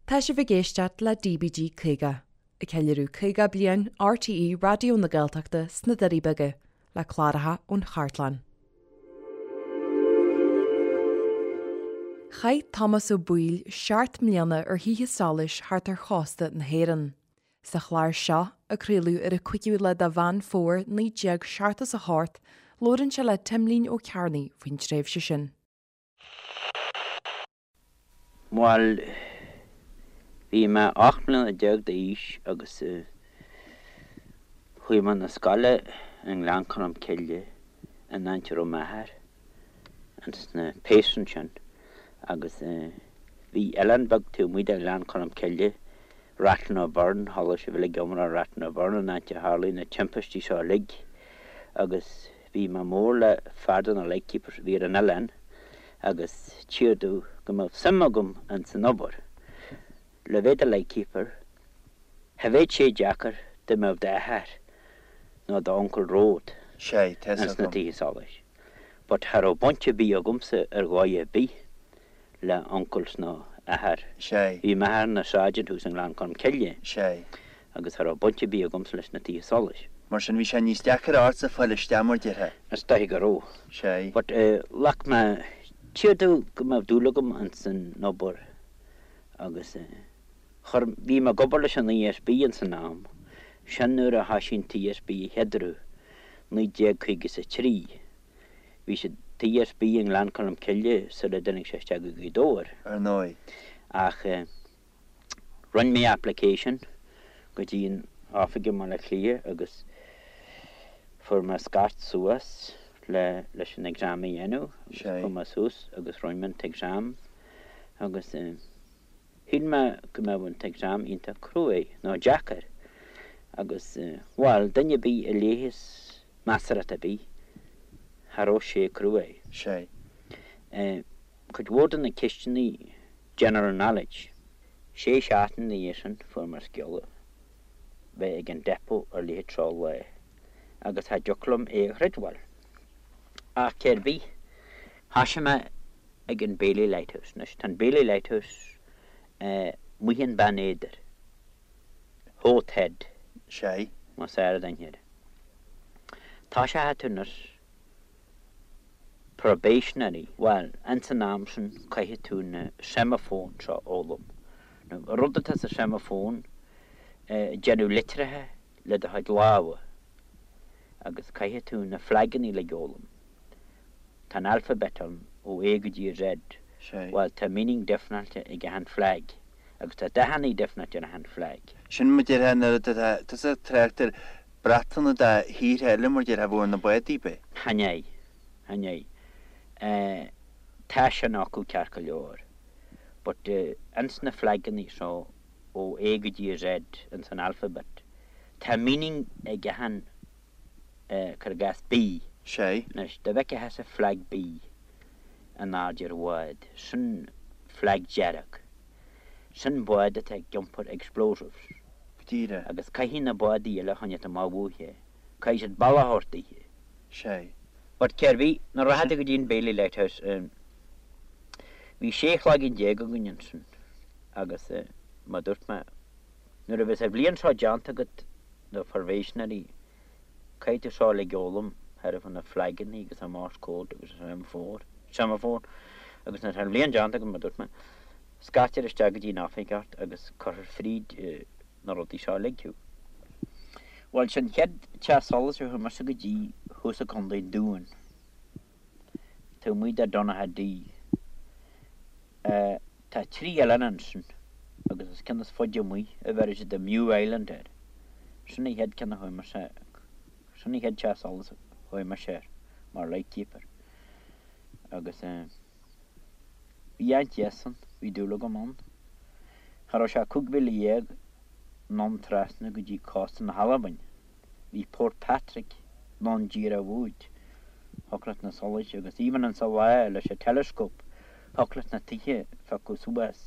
Tá sibh ag éisteacht le DBG 50, ag ceiliúradh 50 bliain RTÉ Raidió na Gaeltachta sna Doirí Beaga, le cláracha ón chartlann. Chaith Tomás Ó Baoill 7 mbliana ar thithe solais thart ar chósta na hÉireann. Sa chlár seo, a craoladh ar an 5ú lá de Mheán Fómhair 1978, labhrann sé le Timlín Ó Cearnaigh faoin tréimhse sin. Bhuel, bhí mé 18 mbliana d'aois agus chuaigh mé 'na scoile i nGleann Cholm Cille in áit a raibh m'athair ins na péas ansin agus bhí oileán beag taobh amuigh de Ghleann Cholm Cille, Rath-na-Burn, chuala sibh uilig iomrá ar Rath-na-Burn an áit a tharlaigh na timpistí seo uilig agus Bhí mé mór le fear de na lightkeepers a bhí ar an oileán agus tchíthear domh go mbeadh suim agam ins an obair. Le bheith i do lightkeeper, cha bheadh sé deacair dá mbeadh d'athair nó d'uncail romhat Sé, tá 'fhios ins na agam. tithe solais. But cha raibh baint ar bith agamsa ar dhóigh ar bith le uncles nó athair. Sé. Bhí m'athair ina sergeant thuas i nGleann Cholm Cille. Sé. Agus cha raibh baint ar bith agamsa leis na tithe solais. Mar sin bhí sé níos deacair ortsa fáil isteach mar déarfá. Is dóiche go raibh. Sé. But ghlac mé, tchíthear domh go mbeadh dúil agam ins an obair agus chuir, bhí mé ag obair leis an ESB ins an am sin nuair a thoisigh an t-ESB a chéaduair, 1953. Bhí an t-ESB i nGleann Cholm Cille sula dtáinig sé isteach go Gaoth Dobhair. Ar ndóigh. Ach rinne mé application go dtí an oifig i mBaile Átha Cliath agus fuair mé scairt suas le leis an exam a dhéanamh agus chuaigh mé suas agus rinne mé an t-exam agus shíl mé go mbeadh an t-exam iontach cruaidh nó deacair agus bhuel duine ar bith a léigheas measartha ar bith, cha raibh sé cruaidh. Sé. Cuid mhór de na ceisteanna general knowledge. Sé seachtaine ina dhiaidh sin fuair mé scéala bheith ag an depot ar leithéid seo lá agus cha dtiocfadh liom é a chreidbheáil. Ach cér bith, thoisigh mé ag an Baily Lighthouse. Anois tá an Baily Lighthouse amuigh in Beann Éadair. Howth Head. Sé. Más aire don thír. Toiseochaidh tú anois probationary, bhuel, ins an am sin caithfidh tú na seimeafóin seo a fhoghlaim. Now, an rud atá sa seimeafón, déanamh litreacha le do chuid lámha agus caithfidh tú na flagannaí uilig a fhoghlaim. Tá an alphabet ann ó A go dtí Z. Sé. Bhuel, tá meaning difreáilte ag achan flag agus tá dathannaí difreáilte ar achan flag. Sin mar déarfá nuair atá tusa ag trácht ar bratanna de thíortha eile mar déarfá a bheadh ar na bádaí, b'é? Chan ea, chan ea. Tá sin acu ceart go leor. But ins na flagannaí seo ó A go dtí Z ins an alphabet, tá meaning ag achan cuir i gcás B. Sé. Anois, dá bhfeicfeá thusa flag B in airde ar bhád, sin flag dearg. Sin bád atá ag iompar explosives. Go díreach. Agus caithfidh na bádaí eile a choinneáilt amach uaithe. Caithfidh siad bealach a thabhairt daoithe. Sé. But cér bith, nuair a rachfá tú go dtí an Baily Lighthouse, bhí 16 cloigeann againn ansin agus mar dúirt mé, nuair a bheas an bhliain seo déanta agat, na probationary, caithfidh tú seo uilig a fhoghlaim, thairbhe na flagannaí agus an Morse code agus an semaphore, semaphore, agus nuair atá an bhliain déanta agat, mar dúirt mé, scairtear isteach go dtí an oifig ort agus cuirfear fríd na rudaí seo uilig thú. Bhuel, sin chéad teach solais a chuaigh mise go dtí thuas i gContae an Dúin, taobh amuigh de Donaghadee. Tá 3 oileán ansin agus is ceann is faide amuigh a bheireann siad the Mew Island air. Sin an chéad ceann a chuaigh mise, sin an chéad teach solais a chuaigh mise air mar lightkeeper. Agus bhí an-deas ann, bhí dúil agam ann. Cha raibh sé 15 mhíle anonn trasna go dtí cósta na hAlbain. Bhí Port Patrick anonn díreach uait. Thiocfadh leat na solais agus even insa lá leis an telescope thiocfadh leat na tithe a phiocadh suas.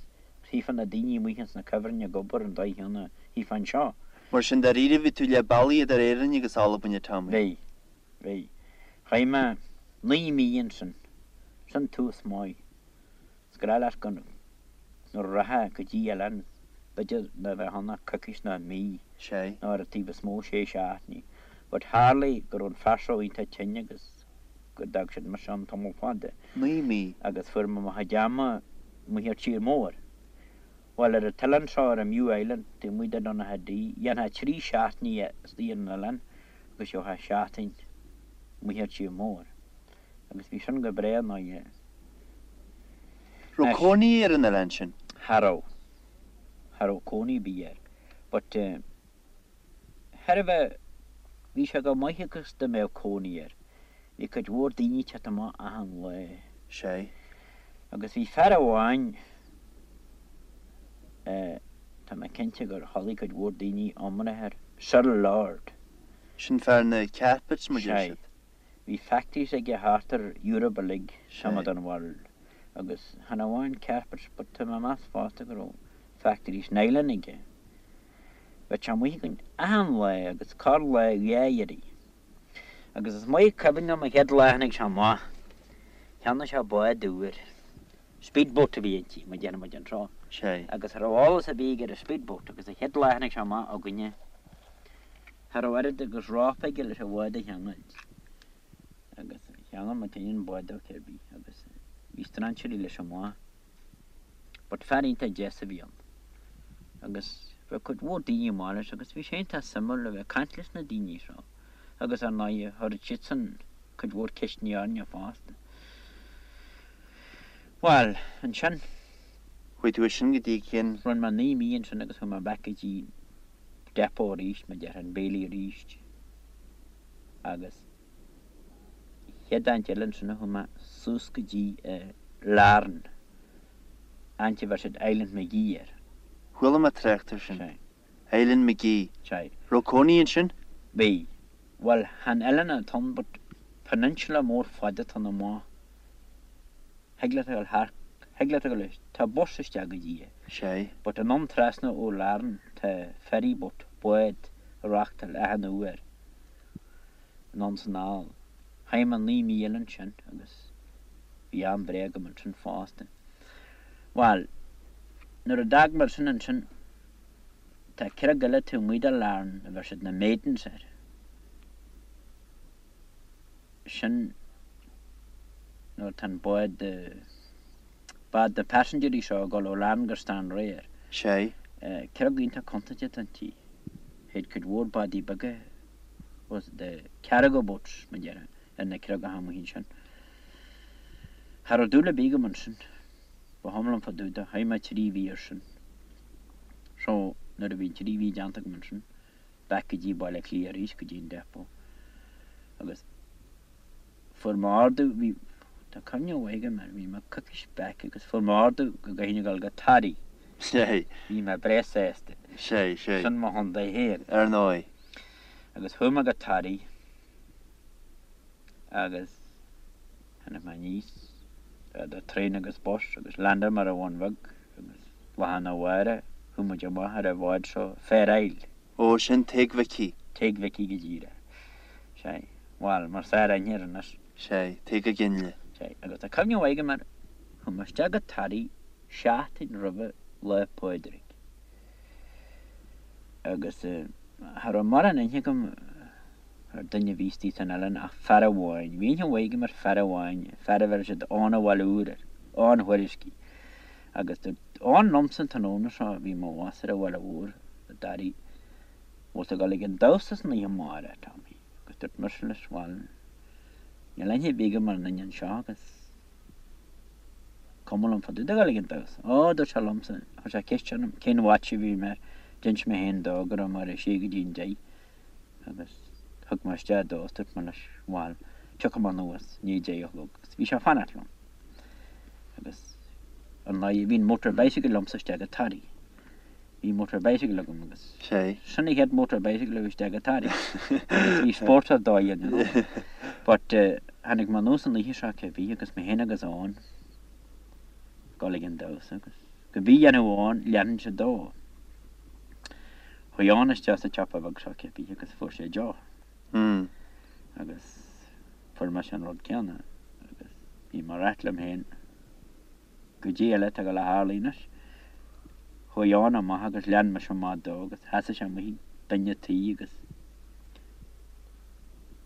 Chífeá na daoine amuigh ins na cuibhrinn ag obair an dóigh chéanna a chífeá anseo. Mar sin dáiríre bhí tú leath bealaigh idir Éirinn agus Albain, a Tommy. Bhí. Bhí. Chaith mé 9 mí ansin. Sin tús maith. Is gnách leat go nuair a rachfá go dtí oileán. B'fhéidir ná bheadh ann ach coicís ná mí. Sé. Nó ar an taobh is mó sé seachtainí. But tharlaigh go raibh an fear seo iontach tinn agus go d'fhág siad mise ann tamall fada. 9 mí. Agus fuair mé mo chuid ama amuigh ar tír mór. Bhuel ar an t-oileán seo ar an Mew Island taobh amuigh de Donaghadee, dhéanfá 3 seachtainí istigh ar an oileán agus gheofá seachtain amuigh ar tír mór. Agus bhí sin go breá ná yeah. Raibh cónaí ar an oileán sin? Cha raibh. Cha raibh cónaí ar bith air. But eh thairbhe bhí sé go maith agus dá mbeadh cónaí air. Bhí cuid mhór daoine ag teacht amach achan lá. Sé. Agus bhí fear amháin eh tá mé cinnte gur chualaidh cuid mhór daoine iomrá air, Cyril Lord. Sin fear na carpets mar deir Sé. siad. Bhí factories aige thart ar Europe uilig, some Sé. of the world, agus chan amháin carpets but tá mé ag meas fosta go raibh factories nylon aige. Bheadh sé amuigh againn achan lá agus corr lá dhá iarraidh. Agus is maith cuimhin liom an chéad lá a tháinig sé amach, cheannaigh sé bád úr, speedboat a bhí inti, mar a déarfadh muid anseo, Sé. agus cha raibh eolas ar bith aige ar an speedboat agus an chéad lá a tháinig sé amach againne, cha raibh oiread agus rópa aige leis an bhád a cheangailt. Agus cheangail muid féin an bád dó cibé agus bhí strainséirí leis amach. But fear iontach deas a bhí ann agus bheadh cuid mhór daoine amach leis agus bhí sé iontach suimiúil a bheith ag caint leis na daoine seo agus ar ndóighe chuireadh siadsan cuid mhór ceisteanna orainne fosta. Bhuel, ansin. Chuaigh tú ansin go dtí cén. Rinne mé 9 mí ansin agus chuaigh mé back go dtí depot arís, mar a déarfá, an Bailey arís agus. Chéad áit eile ansin a chuaigh mé suas go dtí Larne, áit a bheir siad Island Magee air. Chuala mé trácht air sin. Sea. Island Magee. Sea. Raibh cónaí ansin? Bhí. Bhuel, chan oileán atá ann but peninsula mór fada atá ann amach. Thig leat a dhul thar, thig leat a dhul, tá bus isteach go dtí é. Sea. But anonn trasna ó Larne tá ferry boat, bád, ag reachtáil achan uair. Anonn 's anall. Chaith mé 9 mí eile ansin agus bhí am breá agam ansin fosta. Bhuel, nuair a d'fhág mé sin ansin, tá creag eile taobh amuigh de Larne a bheir siad na Maidens air. Sin nuair atá an bád, bád na passengerí seo ag dul ó Larne go Stranraer. Sea. Creag iontach contúirteach atá inti. Théid cuid mhór bádaí beaga was the cargo boats, mar a déarfá, ar na creagacha amuigh ansin. Cha raibh dúil ar bith agam ansin. Ba chuma liom fá dtaobh de. Chaith mé 3 mhí ar sin. So, nuair a bhí an 3 mhí déanta agam ansin, back go dtí Baile Átha Cliath arís, go dtí an depot. Agus fuair mé ordú, bhí, tá cuimhne mhaith agam air, bhí mé coicís back agus fuair mé ordú go gcaithfinn a dhul go Toraigh. Sé. Bhí mé breá sásta. Sé, sé. Sin mo chontae féin. Ar ndóigh. Agus chuaigh mé go Toraigh agus tháinig mé aníos idir traein agus bus agus landáil mé ar an Bhun Bheag agus lá arna mhárach chuaigh muid amach ar an bhád seo Fair Isle. Ó, sin Tigh Mhicí. Tigh Mhicí go díreach. Sea. Bhuel, mar is fearr aithne air anois. Sea, Tigh Ginley. Sea, agus tá cuimhne mhaith agam air, chuaigh mé isteach go Toraigh seachtain roimhe Lá Pádraig. Agus cha raibh mórán aithne agam ar duine a bhí istigh san oileán ach fear amháin. Bhí aithne mhaith agam ar fear amháin, fear a bheireadh siad Eoghan an Bhaile Úir air, Eoghan Thuairiscí. Agus dúirt Eoghan liomsa an tráthnóna seo, bhí mo bhus ar an Bhaile Mhór i dToraigh, bhfuil tú ag dul ag an damhsa san oíche amárach, Tommy? Agus dúirt mise leis, bhuel, níl aithne ar bith agam ar an duine anseo agus cuma liom fá dtaobh de dhul ag an damhsa. Ó, dúirt sé liomsa, chuir sé ceist orm cén watch a bhí mé air, d'inis mé féin dó go raibh mé ar a sé go dtí an deich agus thug mé isteach dó is dúirt mé leis, bhuel, tiocfaidh mé anuas i ndiaidh deich a chlog agus bhí sé ag fanacht liom. Agus ar ndóigh bhí an motor bicycle liomsa isteach go Toraigh. Bhí motor bicycle agam agus Sé. sin an chéad motor bicycle a bhí isteach go Toraigh. Agus bhí spórt ar dóigh ann, you know. But tháinig mé anuas an oíche seo cibé agus mé féin agus Eoghan ag dul ag an damhsa agus cibé a dhéanfadh Eoghan leanfainnse dó. Chuaigh Eoghan isteach sa tsiopa bheag seo cibé agus fuair sé deoch. Agus fuair mise an rud céanna agus bhí mé ag ráit liom féin, Goidé eile atá ag dul a tharlú anois. Chuaigh Eoin amach agus lean mise amach dó agus sheasaigh sé amuigh ag duine an tí agus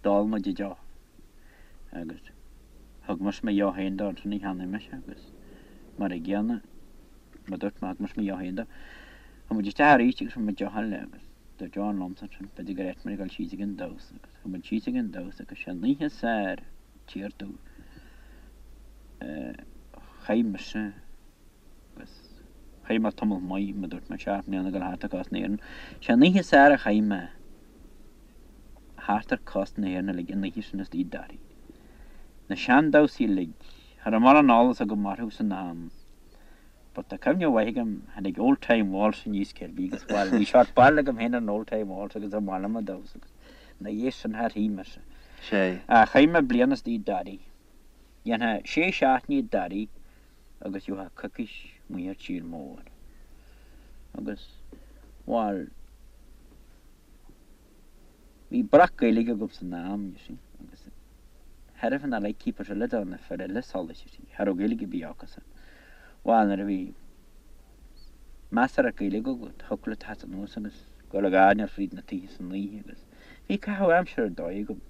d'ól muid an deoch agus thug mise mo dheoch féin dó ansin a cheannaigh mise agus mar a gcéanna mar dúirt mé thug mise mo dheoch féin dó. Chuaigh muid isteach arís agus fuair muid deoch eile agus dúirt Eoin liomsa ansin b'fhéidir gur áit muid ag dul síos ag an damhsa agus chuaigh muid síos ag an damhsa agus sé an oíche is fearr tír domh chaith mise Agus chaith mé tamall maith, mar dúirt mé, 7 mbliana ag dul thart ar chósta na hÉireann. Sé an oíche is fearr a chaith mé thart ar chósta na hÉireann uilig, an oíche sin istigh i dToraí. Na seandamhsaí uilig, cha raibh mórán eolas agam orthu san am, but tá cuimhne mhaith agam, tháinig Old Time Waltz aníos cérbí agus bhuel, bhí seort barúil agam féin ar an Old Time Waltz agus ba mhaith liom a damhsa agus ina dhiaidh sin char shuigh mise. Sé. Ach chaith mé bliain istigh i dToraí. Dhéanfá sé seachtainí i dToraí agus gheofá coicís amuigh ar tír mór. Agus, bhuel, bhí breac Gaeilge agam san am, you see, agus cha raibh na lightkeepers eile do na fir eile solais, you see, cha raibh Gaeilge ar bith acusan. Bhuel, nuair a bhí measartha Gaeilge agat, thiocfadh leat teacht anuas agus dul ag airneál fríd na tithe san oíche agus bhí caitheamh aimsire ar dóigh agam.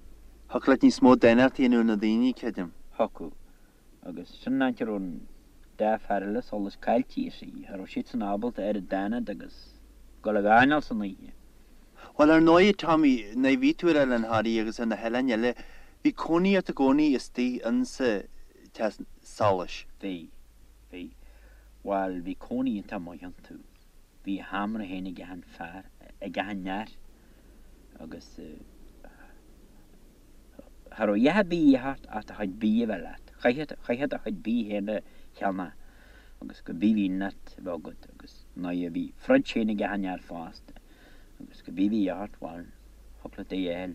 Thiocfadh leat níos mó daonnachta a dhéanamh ar na daoine, creidim. Thiocfadh. Agus sin an áit a raibh an dá fear eile solais caillte, you see. Cha raibh siadsan ábalta oiread d'fhanacht agus dul ag airneál san oíche. Bhuel, ar ndóigh, Tommy, nuair a bhí tú ar Oileán Thoraí agus ar na hoileáin eile, bhí cónaí ort i gcónaí istigh insa teach solais. Bhí. Bhí. Bhuel, bhí cónaí iontach maith iontu. Bhí a sheomra féin ag achan fear, ag achan fhear agus. Cha raibh a dhath ar bith a dhíth ort ach do chuid bídh a bheith leat. Chaithfeá do chuid bídh féin a cheannach agus cibé a bhí leat a bheith agat agus nuair a bhí fridge féin ag achan fhear fosta agus cibé a bhí ort, bhuel, thiocfadh leat é a fháil.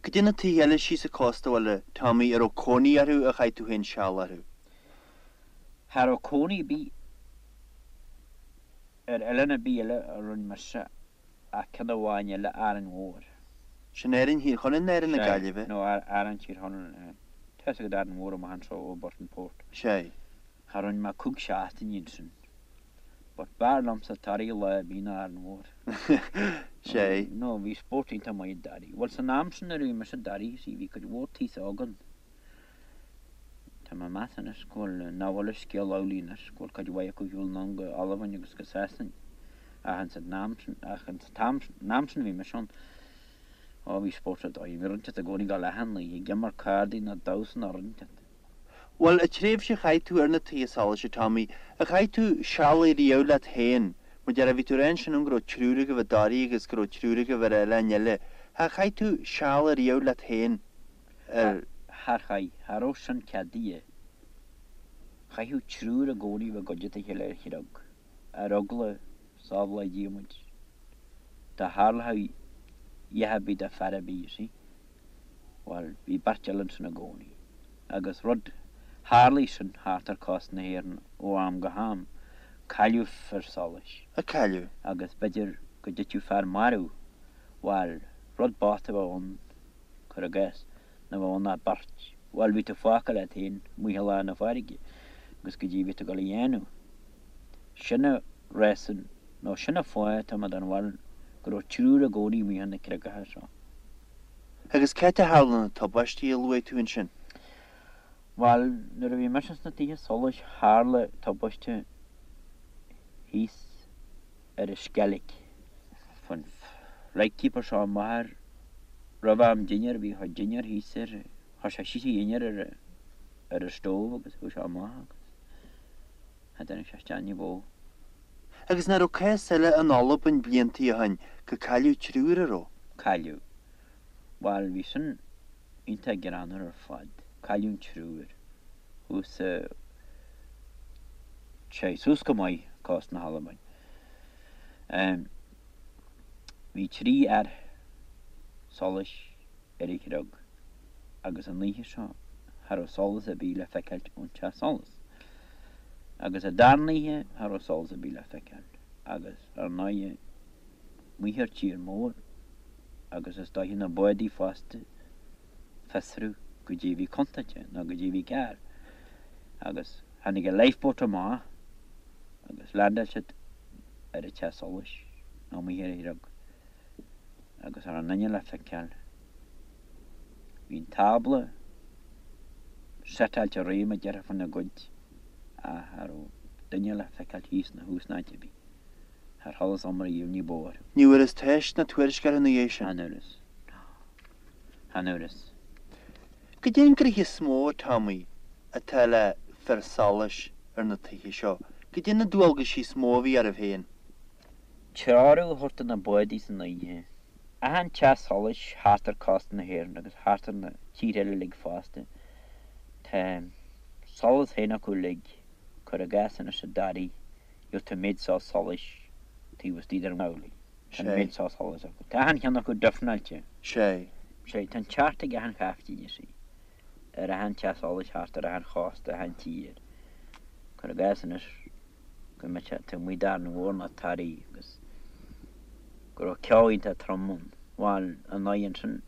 Cad é na tithe eile síos an cósta bhuel, a Tommy, a raibh cónaí orthu ar chaith tú féin seal orthu? Cha raibh cónaí ar bith ar oileán ar bith eile a rinne mise ach ceann amháin eile, Árainn Mhór. Sin Árainn Thír Chonaill nó Árainn na Gaillimhe? Sea, nó Árainn Tír Chonaill. Tá fhios agat Árainn Mhór amach anseo ó Burtonport. Sea. Cha rinne mé cúig seachtainí ansin. But b'fhearr liomsa Toraigh lá ar bith ná Árainn Mhór. Sea. No, bhí spórt iontach maith i dToraigh. Bhuel, san am sin nuair a bhí mise i dToraigh, see, bhí cuid mhór tithe againn. Tá mé ag meas anois go bhfuil, nach bhfuil an scéal amhlaidh anois, go bhfuil cuid mhaith acu ar shiúl anonn go Albain agus go Sasain. Ach ins an am sin, ach ins an t-am sin, an am sin a bhí mise ann, ó bhí spórt ar dóigh, bhí rud inteacht i gcónaí ag dul achan oíche, ag imirt cárdaí nó damhsa nó rud inteacht. Bhuel, an tréimhse a chaith tú ar na tithe solais, a Tommy, ar chaith tú seal riamh leat féin, mar a déarfá, bhí tú ag rá ansin go raibh triúr agaibh i dToraigh agus go raibh triúr agaibh ar oileáin eile, ar chaith tú seal riamh leat féin? ar. Char chaith, cha raibh sin ceadaithe. Chaithfeadh triúr i gcónaí bheith i gcuideachta a chéile ar chreag, ar eagla, sábhála Dia muid, dá tharlódh a dhath ar bith do fear ar bith, you see. Bhuel, bhí beirt eile ansin i gcónaí. Agus rud, tharlaigh sin thart ar cósta na hÉireann ó am go ham, cailleadh fir solais. A cailleadh. Agus b'fhéidir go dtitfeadh fear marbh, bhuel, rud bocht a bheadh ann. cuir i gcás, nach mbeadh ann ach beirt. Bhuel, bhí tú fágtha leat féin amuigh i lár na farraige agus goidé a bhí tú ag dul a dhéanamh. Sin an reason, nó sin an fáth, tá mé den bharúil, go raibh triúr i gcónaí amuigh ar na creagacha seo. Agus cá háit a tharla na tubaistí a luaigh tú ansin? Bhuel, nuair a bhí mise sna tithe solais, tharla tubaiste thíos ar an Sceilg. Chuaigh an lightkeeper seo amach ar roimh am dinnéir, bhí a chuid dinnéir thíos ar, chuir sé síos a dhinnéar ar ar an stove agus chuaigh sé amach agus cha dtáinig sé isteach ní ba mhó. Agus nach raibh cás eile in Albain bliantaí ó shin gur cailleadh triúr, an raibh? Cailleadh. Bhuel, bhí sin iontach greannmhar ar fad. Cailleadh an triúr. Thuas sa. Sé, suas go maith, cósta na hAlbain. Bhí trí fhear solais ar an chreag agus an oíche seo cha raibh solas ar bith le feiceáilt ón teach solais. Agus an darna oíche cha raibh solas ar bith le feiceáilt agus ar ndóighe amuigh ar tír mór agus is dóiche na bádaí fosta fiosrú goidé a bhí contúirteach nó goidé a bhí cearr agus tháinig an lifeboat amach agus landáil siad. Ar an teach solais, nó amuigh ar an chrog, agus cha raibh aon duine le feiceáil. Bhí an tábla setáilte réidh mar a déarfá fána gcuid ach cha raibh duine le feiceáil thíos ná thuas ná áit ar bith. Char chualas iomrá riamh ní ba mhór. Ní bhfuarthas teist ná tuairisc orthu ina dhiaidh sin. Chan fhuarthas. Chan fhuarthas. Goidé an gnoithe is mó, a Tommy, atá le fir solais ar na tithe seo? Goidé na dualgaisí is mó a bhí oraibh féin? Treorú a thabhairt do na bádaí san oíche. Achan teach solais thart ar cósta na hÉireann agus thart ar na tíortha eile uilig fosta, tá solas féin acu uilig, cuir i gcás anois i dToraí, gheobhaidh tú an méid seo solais taobh istigh den amhlaidh. Tá an méid seo solais acu. Tá achan cheann acu difreáilte. Sé. Sé. Tá an ceart ag achan chaiftín, you see, ar achan teach solais thart ar achan chósta, achan tír. Cuir i gcás anois go mbeadh sé taobh amuigh d'Árainn Mhór nó Toraí agus go raibh ceo iontach trom ann. Bhuel, ar ndóigh ansin,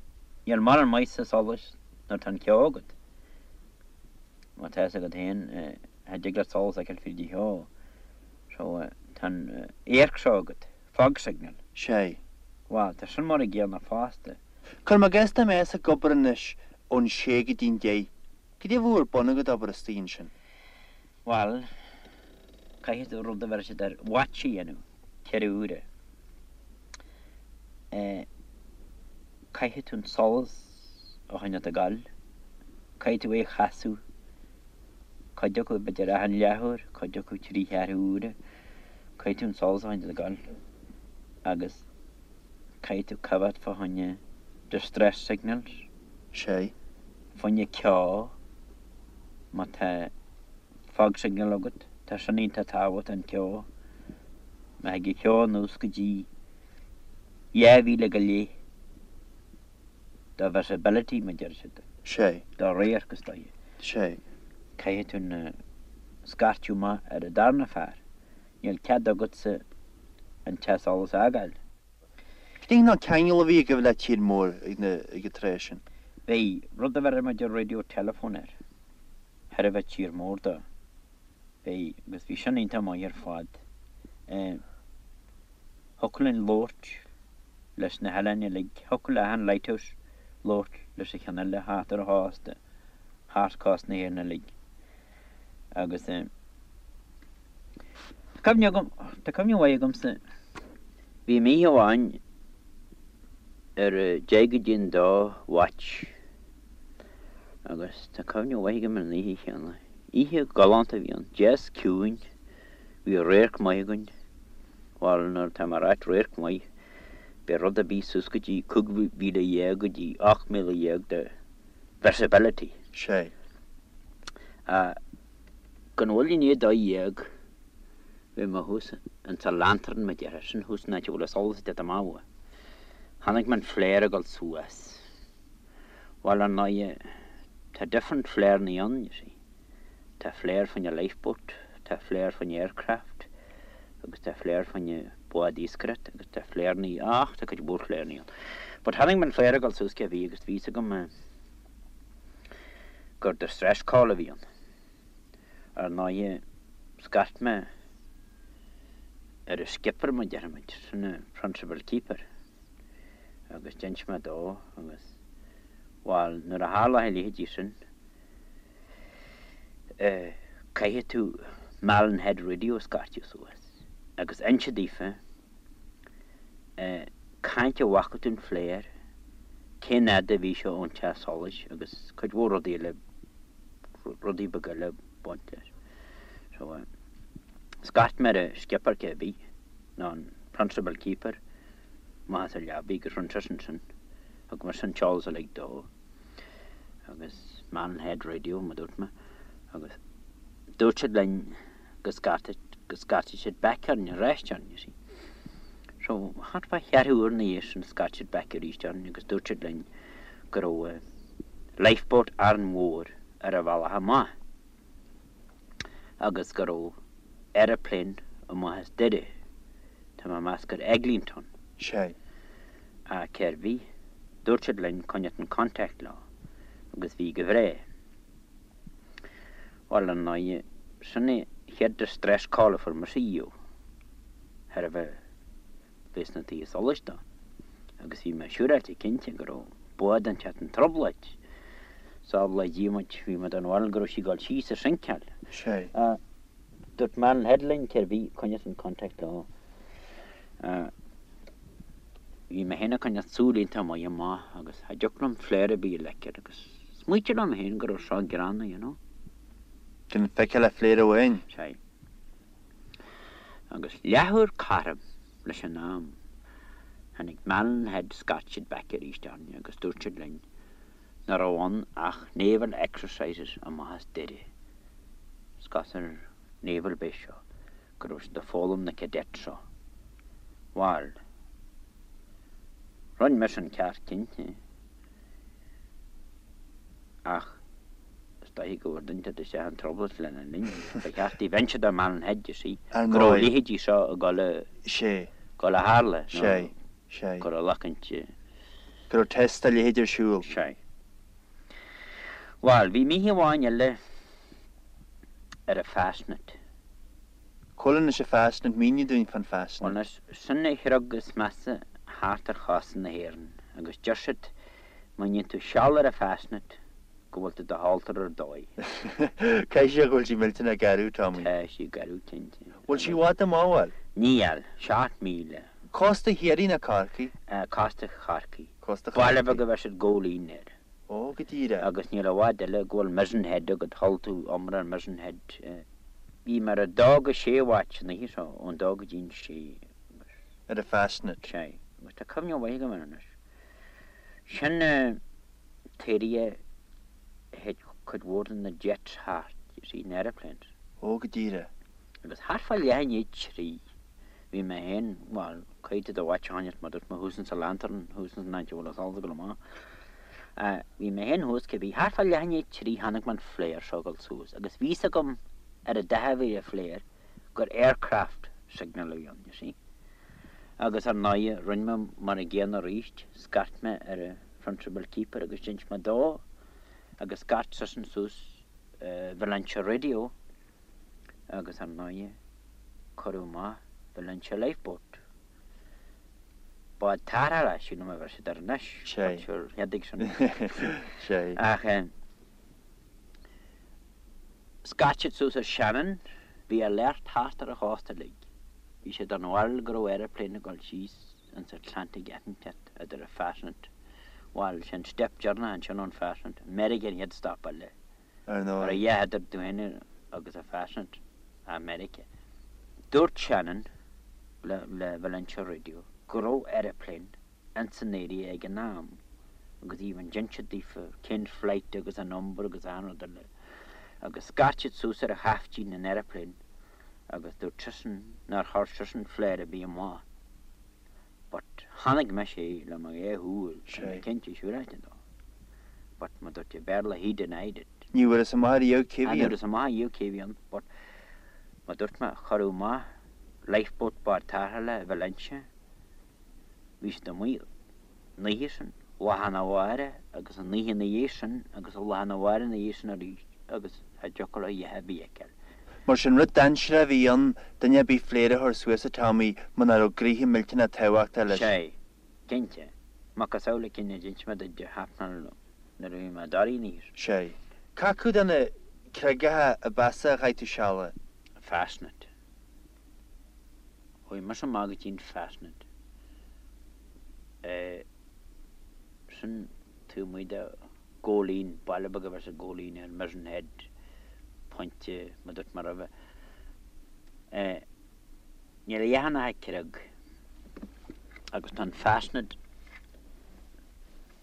níl mórán maitheasa solais nuair atá an ceo agat. Má tá fhios agat féin, cha dtig leat solas a fheiceáil fríd an cheo. So, tá an amharc seo agat, fog signal. Sé. Bhuel, tá sin mar an gcéanna fosta. Cuirim i gcás dá mbeifeá ag obair anois ón sé go dtí'n deich, goidé a bheadh ar bun agat obair istigh ansin? Bhuel, caithfidh tú rud a bheir siad ar watch a dhéanamh, 4 uaire. Eh, caithfidh tú an solas a choinneáilt ag gabháil, caithfidh tú é a chasadh, cuid acu b'fhéidir achan leathuair, cuid acu trí cheathrú uaire, caithfidh tú an solas a choinneáilt ag gabháil agus caithfidh tú coimhéad fá choinne distress signals, Sé. fá choinne ceo, má tá fog signal agat, tá sin iontach tábhachtach an ceo, má thig an ceo anuas go dtí 2 mhíle go leith do visibility, mar a deir siad. Sé. Do radharc is dóiche. Sé. Caithfidh tú na scairteadh amach ar an darna fear. Níl cead agatsa an teach solais a fhágáil. Cén cineál ceangal a bhí agaibh le tír mór ag na ag an tráth sin? Bhí rud a bheireadh muid ar radio telephone air. Sheirbhís tír mór dó. Bhí, agus bhí sin iontach maith ar fad. Thiocfadh linn labhairt leis na hoileáin uilig, thiocfadh le achan lighthouse labhairt leis an cheann eile thart ar an chósta, thart cósta na hÉireann uilig. Agus tá cuimhne agam, tá cuimhne mhaith agamsa, bhí mé oíche amháin ar deich go dtí an dó watch agus tá cuimhne mhaith agam ar an oíche chéanna. Oíche galánta a bhí ann, deas ciúin, bhí radharc maith againn, bhuel nuair atá mé ag ráit radharc maith, b'é rud ar bith suas go dtí 15,000 go dtí 18,000 de visibility. Sé. Ach gan mhoill i ndiaidh 12 bhí mé thuas insa lantern mar a déarfá, sin thuas an áit a bhfuil an solas ag teacht amach uaidh. Chonaic mé an flare ag dul suas. Bhuel, ar ndóighe, tá different flare-annaí ann, you see. Tá flare fá choinne lifeboat, tá flare fá choinne aircraft, agus tá flare fá choinne bád iascaireachta, agus tá flare-annaí, ach tá cuid mhór flare-annaí ann. But chonaic mé an flare ag dul suas cé bhí agus bhí fhios agam gur distress call a bhí ann. Ar ndóighe, scairt mé ar an skipper, mar a déarfaimid, sin an principal keeper. agus d'inis mé dó agus, bhuel, nuair a tharla a leithéidí sin, eh, caithfidh tú Malin Head Radio a scairteadh suas agus inse daofa, eh, cá háit a bhfaca tú an flare, cén fhad a bhí sé ón teach solais agus cuid mhór rudaí eile, rudaí beaga eile ag baint leis. So, eh, scairt mé ar an skipper cé bith, nó an principal keeper, amach as a leabaidh agus rinne seisean sin. Thug mise an t-eolas uilig dó agus Malin Head Radio mar dúirt mé agus dúirt siad linn go scairtfeadh go scairtfeadh siad back orainn arís orainn you see. So thart fá cheathrú uair ina dhiaidh sin scairt siad back arís orainn agus dúirt siad linn go raibh lifeboat Árainn Mhór ar a bhealach amach. agus go raibh aeroplane amach as Doire, tá mé ag meas gur Eglinton. Sé. Ach cér bith, dúirt siad linn coinneáilt in contact leo, agus bhí go bhreá. Bhuel, ar ndóighe, sin é chéad distress call a fuair mise riamh. Thairbhe bheith sna tithe solais dó agus bhí mé siúráilte cinnte go raibh bád inteacht in trioblóid. Sábhála Dia muid, bhí mé den bharúil go raibh sí ag dul síos ag sinceáil. Sea. Dúirt Malin Head linn cérbh í, coinneos in contact leo. Bhí mé féin ag coinneáil súil iontach maith amach agus cha dtiocfadh liom flare ar bith a fheiceáil agus smaoitigh liom féin go raibh seo gránna, you know. Gan feiceáil ach flare amháin. Sea. Agus leathuair cothrom leis an am, tháinig Malin Head scairt siad back arís orainn agus dúirt siad linn nach raibh ann ach naval exercises amach as Doire, is ar naval base seo, go raibh siad ag foghlaim na cadets seo. Bhal, rinne mise an ceart cinnte. Ach is dóichí go bhfuair duine inteacht isteach in trioblóid lena linn. Ba cheart daoibh inse do Malin Head, you see, Ar go raibh a ndóigh. leithéidí seo ag dul a, Sé. dul a tharla, nó Sé. Sé. go raibh lachaint. Go raibh test dá leithéid ar siúl. Sé. Bhal, bhí oíche amháin eile ar an Fastnet. Cá bhfuil anois an Fastnet, mínigh dúinn fán Fastnet. Bhuel anois, sin an chreag is measa thart ar chósta na hÉireann agus deir siad má dhéanann tú seal ar an Fastnet go bhfuil tú do shaltar ar dóigh. Caithfidh sé go bhfuil sí millteanach garbh, Tommy. Tá sí garbh cinnte. Bhfuil sí i bhfad amach, bhfuil? Níl, 7 míle. Cósta Chiarraí nó Corcaí? Cósta Chorcaí. Cósta Baile Chorcaí. beag a bheir siad Góilín air. Ó, go díreach. Agus níl i bhfad eile go bhfuil Mizen Head agat, chuala tú iomrá ar Mizen Head. Bhí mé ar a dó go sé watch an oíche seo, ón dó go dtí'n sé agus. Ar an Fastnet. Sea. Agus tá cuimhne mhaith agam air anois. Sin an t-area a théid cuid mhór de na jets thart, you see, na aeroplanes. Ó, go díreach. Agus thart fá leath i ndiaidh trí, bhí mé féin, bhuel, caithfidh tú do watch a choinneáilt mar dúirt mé thuas insa lantern, thuas ins an áit a bhfuil an solas ag dul amach. Bhí mé féin thuas cibé, thart fá leath i ndiaidh trí chonaic mé an flare seo ag dul suas agus bhí fhios agam ar an dath a bhí ar an flare gur aircraft signal a bhí ann, you see. Agus ar ndóighe, rinne mé mar an gcéanna arís, scairt mé ar an principal keeper agus d'inis mé dó agus scairt seisean suas Valentia Radio agus ar ndóighe cuireadh amach Valentia Lifeboat. Bád tarrthála, sílim a bheir siad air anois, Sé. but sure, cheadaigh sin. Sé. Ach scairt siad suas ar Shannon, bhí alert thart ar an chósta uilig. Bhí siad den bharúil go raibh aeroplane ag dul síos ins Atlantic inteacht idir an Fastnet, bhuel, sin step deireanach ansin ón Fastnet, Meiriceá an chéad stop eile. Ar ndóigh. Ar a dhath idir tú féin agus an Fastnet, Meiriceá. Dúirt Shannon le le Valentia Radio go raibh aeroplane ins an area ag an am agus even d'inis siad daofa cén flight agus an number agus achan rud eile agus scairt siad suas ar chaiftín an aeroplane agus dúirt seisean nár chuir seisean flare ar bith amach. But chonaic mise é le mo dhá shúil, tá mé cinnte siúráilte dó. But mar dúirt i Béarla he denied it. Ní bhfuarthas amach riamh cé bhí Ní ann. bhfuarthas amach riamh cé bhí ann but mar dúirt mé cuireadh amach lifeboat bád tarrthála i Valentia. Bhí siad amuigh an oíche sin, lá arna mhárach agus an oíche ina dhiaidh sin agus an lá arna mhárach ina dhiaidh sin arís agus cha dtiocfadh leo a dhath ar bith a fheiceáil. Mar sin, rud dainséarach a bhí ann, duine ar bith flare a chur suas, a Tommy, muna raibh gnoithe millteanach tábhachtach leis. Sea, cinnte. Macasamhail an cinn a d'inis mé duit de Shrapnel nuair a bhí mé i dToraí an oíche sin. Sea. Cé acu de na creagacha ab mheasa a chaith tú seal air? Fastnet. Chuaigh mise amach go dtí an Fastnet. Sin taobh amuigh de Góilín, baile beag a bheir siad Góilín air, Mizen Head, pointe, mar dúirt mé roimhe. Níl a dhath ann ach creag agus tá an Fastnet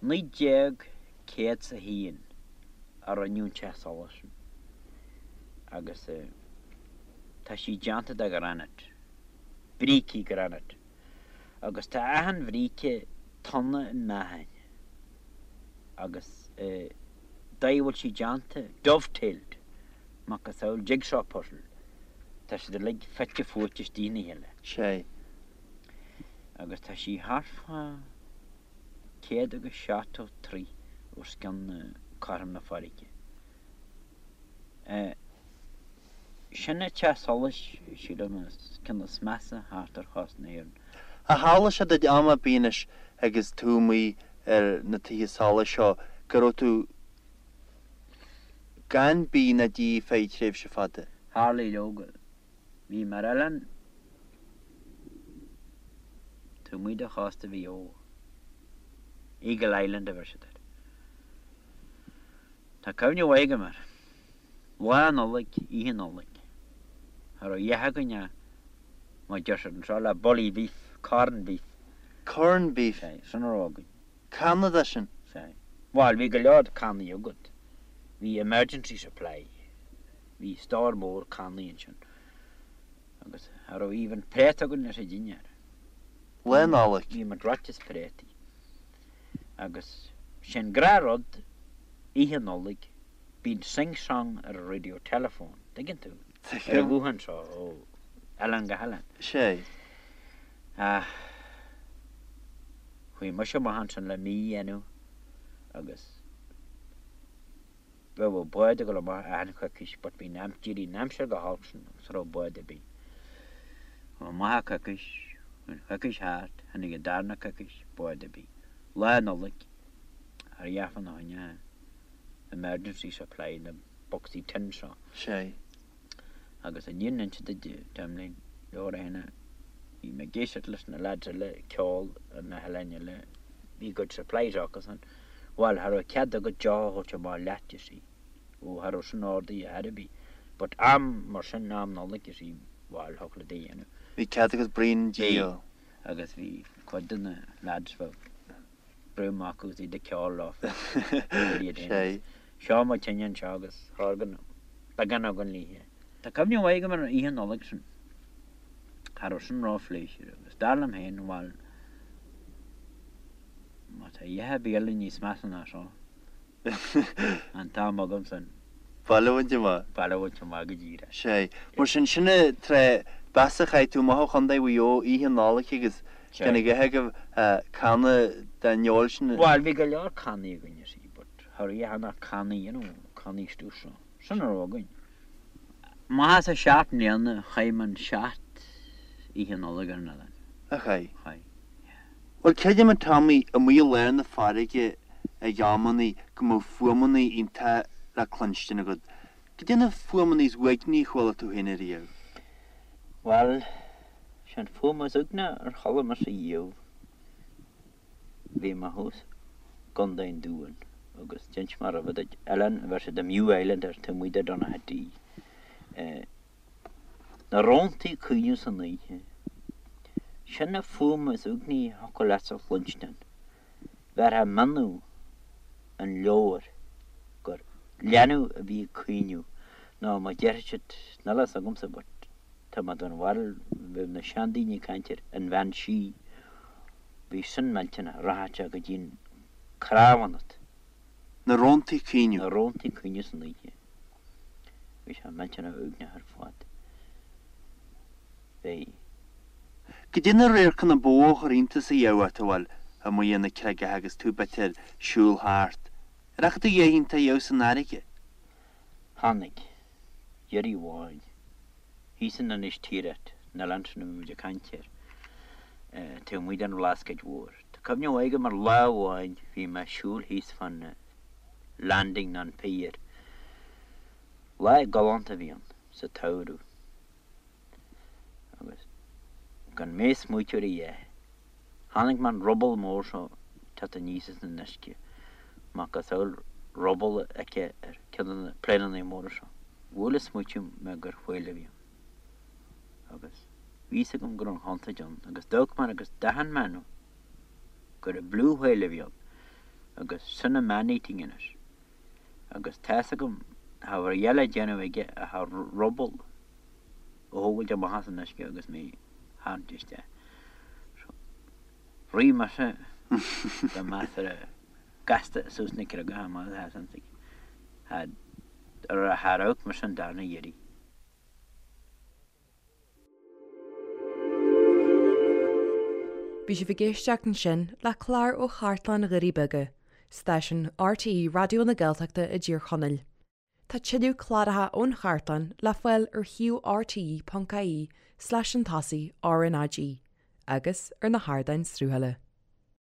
1901 a rinneadh an teach solais sin agus tá sí déanta de ghranite, brící granite agus tá achan bhríce tonna i meáchain. agus dóigh a bhfuil sí déanta, dovetailed, macasamhail jigsaw puzzle, tá siad uilig fite fuaite istigh ina chéile. Sea. Agus tá sí thart fá 170 troigh os cionn cothrom na farraige. Sin an teach solais, sílim, is ceann is measa thart ar chósta na hÉireann. Ar tharla sé duit am ar bith anois agus tú amuigh ar na tithe solais seo go raibh tú gan bia ná dí feadh tréimhse fada? Tharlaigh leoga. Bhí mé ar oileán taobh amuigh de chósta Mhaigh Eo, Eagle Island a bheir siad air. Tá cuimhne mhaith agam air. Lá Nollag, Oíche Nollag. Cha raibh a dhath againn ach, mar deir siad anseo, le bully beef, corn beef. Corn beef? Sea, sin a raibh againn. Canna de sin? Sea. Bhuel, bhí go leor cannaí agat. Bhí emergency supply. Bhí stór mór cannaí ansin. Agus cha raibh even préata againn leis an dinnéar. Lá Nollag? Bhí muid reoite as préataí. Agus sé'n gnáthrud, Oíche Nollag, Bíonn sing song ar an radio telephone, tuigeann tú? Ar an ghuthán seo ó oileán go hoileán. Sea. Ach chuaigh mise amach ansin le mí a dhéanamh agus bheadh bád ag dul amach achan choicís but bhí an d'éirigh an aimsir go holc sin agus cha raibh bád ar bith. Chuaigh amach coicís, chuaigh an choicís thart, tháinig an darna coicís, bád ar bith. Lá Nollag, cha raibh a dhath fána choinne. emergency supply na bocsaí tin seo. Sea. Agus an fhírinne a inse duit, Tomlin, leor é na, bhí mé ag éisteacht leis na lads eile ag ceol ar na hoileáin eile, bhí a gcuid supplies acusan, bhuel, cha raibh cead agat deoch a thabhairt amach leat, you see. Ó, cha raibh sin ordaithe ar bith. But am mar sin, am Nollag, you see, bhuel, thiocfadh leat é a dhéanamh. Bhí cead agat braon dí a. Bhí. Agus bhí cuid de na lads, bheadh. brú amach agus iad ag ceol leofa. Sea. Seo mo tine anseo agus chóir go beagán againn léithe. Tá cuimhne mhaith agam ar an oíche Nollag sin. Cha raibh sin ró-phléisiúrtha agus dar liom féin, bhuel, má tá a dhath ar bith eile níos measa ná seo, An t-am agam san. Baile a bhaint amach. Baile a bhaint amach go díreach. Sea. Mar sin, sin an tráth ba mheasa a chaith tú amach ó Chontae Mhaigh Eo oíche Nollag agus gan a dhath agaibh canna den fheoil sin. Bhuel, bhí go leor cannaí againn, you see, but cha raibh a dhath ach cannaí, you know, cannaí stuif seo. Sin a raibh againn. Amach as an seacht mbliana, chaith mé an seacht Oíche Nollag ar an oileán. A chaith? Chaith, yeah. Bhuel, creidim a Tommy, amuigh i lár na farraige ag amannaí go mbeadh fuaimeannaí iontacha le cluinstin agat. Goidé na fuaimeannaí is uaigní a chuala tú féin ariamh? Bhuel, sé an fuaim is uaigní ar chuala mise riamh, bhí mé thuas i gContae an Dúin agus d'inis mé roimhe duit, oileán a bheir siad an Mew Island air taobh amuigh de Donaghadee. Na róntaí ag caoineadh san oíche. Sin an fuaim is uaigní a thiocfadh leatsa a chluinstin. Bheirtheá mionnú an leabhair gur leanbh a bhí ag caoineadh nó mar déarfaidh siad, níl a fhios agamsa but tá mé den bharúil bheadh na seandaoine ag caint ar an bhean sí, bhí sin millteanach, rachadh sé go dtí an cnámh ionat. Na róntaí ag caoineadh. Na róntaí ag caoineadh san oíche. Bhí sé millteanach uaigneach ar fad. Bhí. Goidé na radharcanna ba mhó a chuir iontas a dheamh ort, a bhuel, amuigh ar na creagacha agus tú b'fhéidir siúl thart. Ar fhaca tú a dhath iontach a dheamh san fharraige? Chonaic. Iarraidh amháin. Thíos in Inis Tiaracht, an oileán sin a bhí muid ag caint air, taobh amuigh den Bhlascaoid Mhór. Tá cuimhne mhaith agam ar lá amháin bhí mé ag siúl thíos fán landing nó an pier. Lá galánta a bhí ann, sa tsamhradh. Agus gan mé ag smaoitiú ar a dhath, chonaic mé an ruball mór seo ag teacht aníos as an uisce, macasamhail ruball a fheicfeá ar ceann de na pléineanna móra seo. Bhuail an smaoitiú mé gur whale a bhí ann. Agus bhí fhios agam go raibh an chontúirt ann, agus d'amharc mé agus d'aithin mé nó gur an blue whale a bhí ann, agus sin an man-eating anois. Agus tá fhios agam, cha raibh a dhath le déanamh aige ach an ruball a thógáilt amach as an uisce agus mé a tharraingt isteach. So, rith mise go measartha gasta suas na creagacha amach as an tigh. Char amharc mise an darna iarraidh. Bhí sibh ag éisteacht ansin le clár ó Chartlann Dhoirí Beaga, stáisiún RTÉ Raidió na Gaeltachta i dTír Chonaill. Tá tuilleadh cláracha ón chartlann le fáil ar shuíomh rte.ie slash chun tosaigh RnaG agus ar na hardáin sruthála.